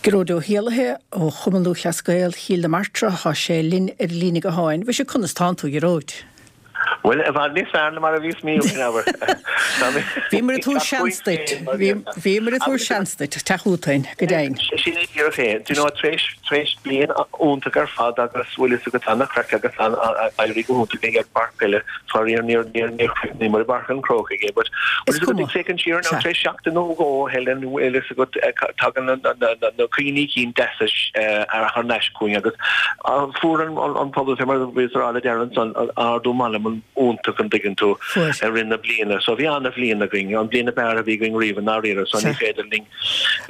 Gearóid Ó hÉallaithe ó Chumann Lúthchleas Gael Chill na Martra, tá sé linn ar an líne gutháin. Mhuise, conas tánn tú, a Ghearóid? Bhuel, i bhfad níos fearr ná mar a bhíos mí ó shin, abair. Bhíomar ag tabhairt seans duit. Bhíomar ag tabhairt seans duit, teacht chugainn, go deimhin. Sin é díreach é. Do you know, tar éis, tar éis bliain iontach ar fad agus bhfuil fhios agat an-chraic agus an-éirí go hiontach ag an bpáirc peile, faraor níor, níor, níor chríochnaíomar i bPáirc an Chrócaigh é, but bhfuil fhios agat ag féachaint siar now, tar éis seachtain nó dhó, Helen, bhfuil fhios agat, tagann na cuimhní cinn deasa thar n-ais chugainn agus fuair an pobal fé mar a bhíos a rá le Darren ansan ardú meanman iontach an dtuigeann tú i rith na bliana. So bhí ana-bhliain againn, an bhliain ab fhearr a bhí againn riamh i ndáiríre. So ní féidir linn,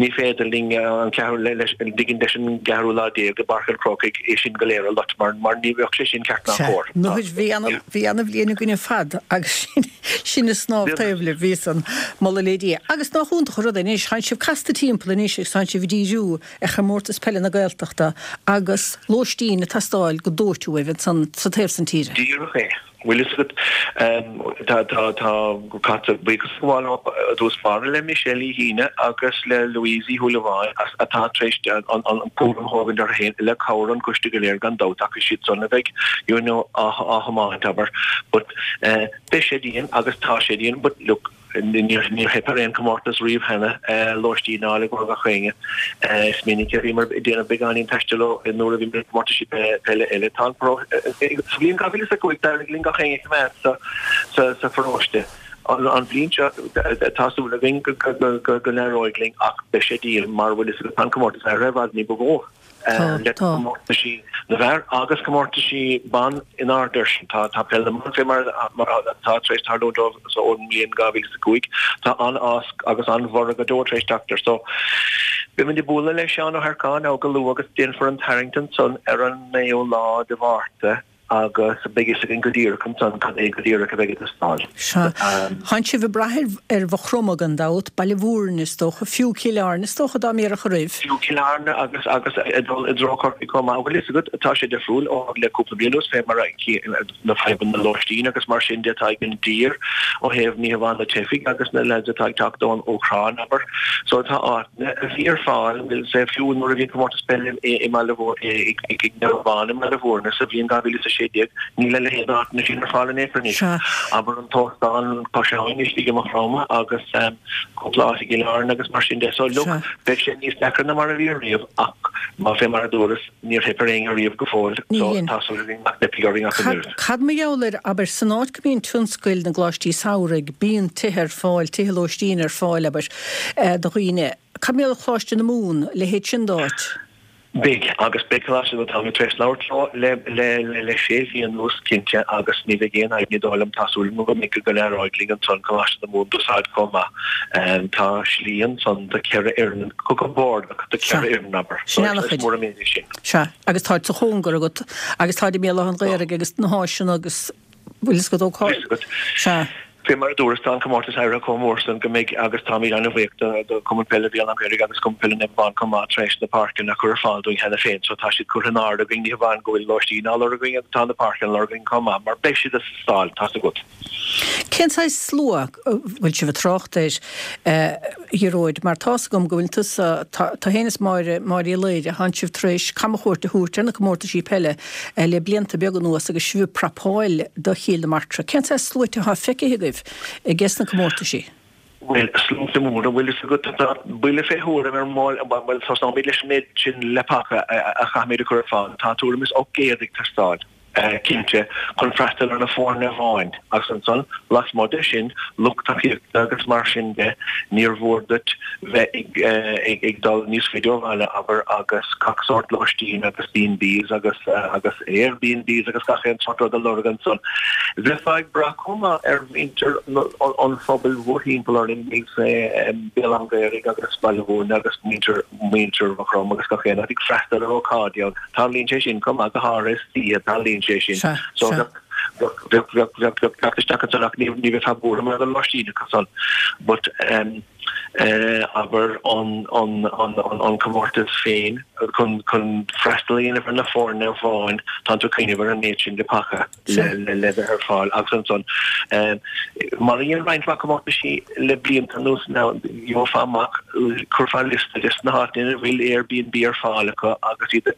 ní féidir linn an ceathrú, leis, an dtuigeann leis an gceathrú lá déag i bPáirc an Chrócaigh é sin go léir a loit mar, mar ní bheadh sé sin ceart ná cóir. Nó bhí ana, bhí ana-bhliain againn ar fad agus sin, sin ag snámh taobh libh, bhí san, moladh le Dia. Agus nach iontach an rud é anois, tánn sibh casta timpeall anois agus tánn sibh ag díriú ar Chomórtas Peile na Gaeltachta agus lóistín ag teastáil go dóite uaibh ansan sa taobh san tíre. Díreach é. Bhfuil fhios agat, tá, tá, tá, caithfear buíochas a ghabháil i dtús báire le Michelle Uí Shíne agus le Louise Uí Shúilleabháin as, atá tar éis an, an, an cúram a thógaint orthu féin le cabhair an choiste go léir gan dabht ach is iad san a bheidh, you know, á, á thiomáint, abair. But, eh, beidh sé dian agus tá sé dian but look, Níor theip ar aon chomórtas riamh cheana, lóistín a fháil i gcomhair gach éinne. Is minic a bhíomar ag déanamh beagáinín taistil ó nuair a bhíomar ag comórtaisí peile eile. Tá an Sa bhliain 2005 d'éirigh linn gach éinne a choimeád sa pharóiste. An bhliain seo tá súil againn go n-éireoidh linn ach beidh sé dian mar bhfuil fhios agat tá an comórtas ar i bhfad ní ba mhó. le comórtaisí na bhfear agus comórtaisí ban in airde air sin. Tá Peil na mBan fé mar atá tar éis tarlúint dóibh ón mbliain 2005. Tá an-fhás agus an-bhorradh go deo tar éis teacht air. So, beimid ag bualadh le Seán Ó hEarcáin go luath agus déanfar an tarraingt ansan ar an 9ú lá de Mhárta. agus beidh fhios againn go díreach ansan cad é go díreach a bheidh ag teastáil. Sea. Tánn sibh ag brath ar Mhaigh Chromtha gan dabht, Baile Mhúirne is dócha, fiú Cill Airne is dócha dá mbéarfadh oraibh. Fiú Cill Airne agus agus ag dul i dtreo Chorcaí chomh maith. Bhfuil fhios agat, tá sé difriúil ó le cúpla bliain anuas fé mar a na fadhbanna lóistín agus mar sin de atá ag an dtír ó thaobh ní hamháin na teifigh agus na lads atá ag teacht ón Úcráin, abair. So tá áiteanna a bhí ar fáil, bhfuil sé fiú nuair a bhí an comórtas peile i mBaile i Naomh Abán i mBaile Mhúirne sa bhliain 2016, níl a leithéid d'áiteanna sin ar fáil in aon chor anois. Abair an t-óstán Cois Abhainn istigh i Maigh Chromtha agus cúpla áit i gCill Airne agus mar sin de. So look, beidh sé níos deacra ná mar a bhí ariamh ach má fé mar a dúras, níor theip ar éinne riamh go fóill so tá súil againn nach dteipfidh orainn ach an oiread. Cad mar gheall air, abair, san áit go mbíonn tionscail na gcoláistí samhraidh, bíonn tithe ar fáil, tithe lóistín ar fáil, abair, do dhaoine. Cad mar gheall ar Choláiste na Mumhan, a leithéid sin d'áit? Beidh, agus beidh Coláiste na Mumhan tar éis labhairt leo le le le sé mhí anuas, cinnte, agus ní bheidh aon fhadhb ní dóigh liom, tá súil agam go mbeidh go n-éireoidh linn ansan Coláiste na Mumhan d'úsáid chomh maith. Tá slí ansan do cheithre fhoireann, go compordach do Sea, cheithre fhoireann, abair. sin So is ana-chuid. mór an méid é sin. Sea, agus táid sa chóngar agat, agus táid i mBéal Átha an Ghaorthaidh agus na háiseanna agus bhfuil fhios agat ó cá. Bhfuil fhios agat. Sea. Fé mar a dúras, tá an comórtas éirithe chomh mór san go mbeidh, agus táimid an-bhuíoch do Chumann Peile Bhéal Átha an Ghaorthaidh agus Cumann Peile Naomh Abán chomh maith tar éis na páirceanna a chur ar fáil dúinn cheana féin. So tá siad curtha in airde againn, ní hamháin go bhfuil lóistín á lorg againn agus tá na páirceanna á lorg againn chomh maith, mar beidh siad ag teastáil, tá's agat. Cén saghas slua a bhfuil sibh ag trácht air, a Ghearóid, mar tá's agam go bhfuil tusa, tá féin is Máire, Máire Uí Laoire, tánn sibh tar éis camchuairt a thabhairt ar na comórtaisí peile le blianta beaga anuas agus sibh ag prapáil do Chill na Martra. Cén saghas sluaite atá feicthe agaibh ages na comórtaisí? Bhuel, sluaite móra, bhfuil fhios agat, tá buille fé thuairim ar mball, bhuel, tosnóimid leis an méid sin leapacha a chaithfimid a chur ar fáil. Tá tuairim is 800 ag teastáil. cinnte, chun freastal ar na foirne amháin, agus ansan, lasmuigh de sin, lucht tacaíochta agus mar sin de, níor mhór duit bheith ag dul níos faide ó bhaile, abair, agus gach sórt lóistín agus B&Bs agus agus Airbnbs agus gach aon sórt rud a lorg ansan. Bheifeá ag brath chomh maith ar mhuintir an phobail mhórthimpeall orainn, Béal Átha an Ghaorthaidh agus Baile Mhúirne agus muintir muintir Mhaigh Chromtha agus gach aon áit ag freastal ar ócáidí ann. Tarlaíonn sé sin chomh maith, go háirithe istoíche, tarlaíonn sé sin. Sea, So sea. bheadh, bheadh, bheadh, bheadh, bheadh teacht isteach ansan ach ní, ní bheifeá buartha mar gheall ar lóistín acu san. But ehm, Abair, an comórtas féin chun freastal a dhéanamh ar na foirne amháin, tá tú ag cuimhneamh ar an méid sin de paca le bheith ar fáil agus ansan, mar a dhein roinnt mhaith comórtaisí le blianta anuas, gheofá amach, chuirfeá liosta des na háiteanna ina bhfuil Airbnb ar fáil acu agus iad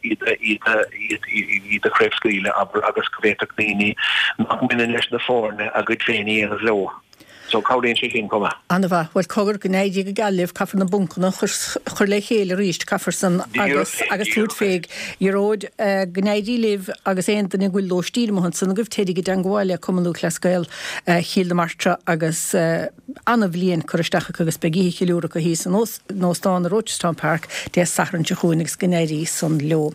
a chraobhscaoileadh, abair, agus go bhféadfadh daoine nach mbaineann leis na foirne a gcuid féin a dhéanamh leo. So cabhraíonn sé sin chomh maith. Ana-mhaith. Bhuel, cogar, go n-éirí go geal libh, caithfear na buncanna a chur le chéile arís, caithfear san agus agus tabhairt fé. Ghearóid, go n-éirí libh agus aon duine go bhfuil lóistín amuigh ansan agaibh, téiríg i dteangmháil le Cumann Lúthchleas Gael Chill na Martra agus ana-bhliain curtha isteach acu agus beidh oíche cheiliúrtha acu thíos in Óstán i Rochestown Park Dé Sathairn seo chugainn agus go n-éirí san leo.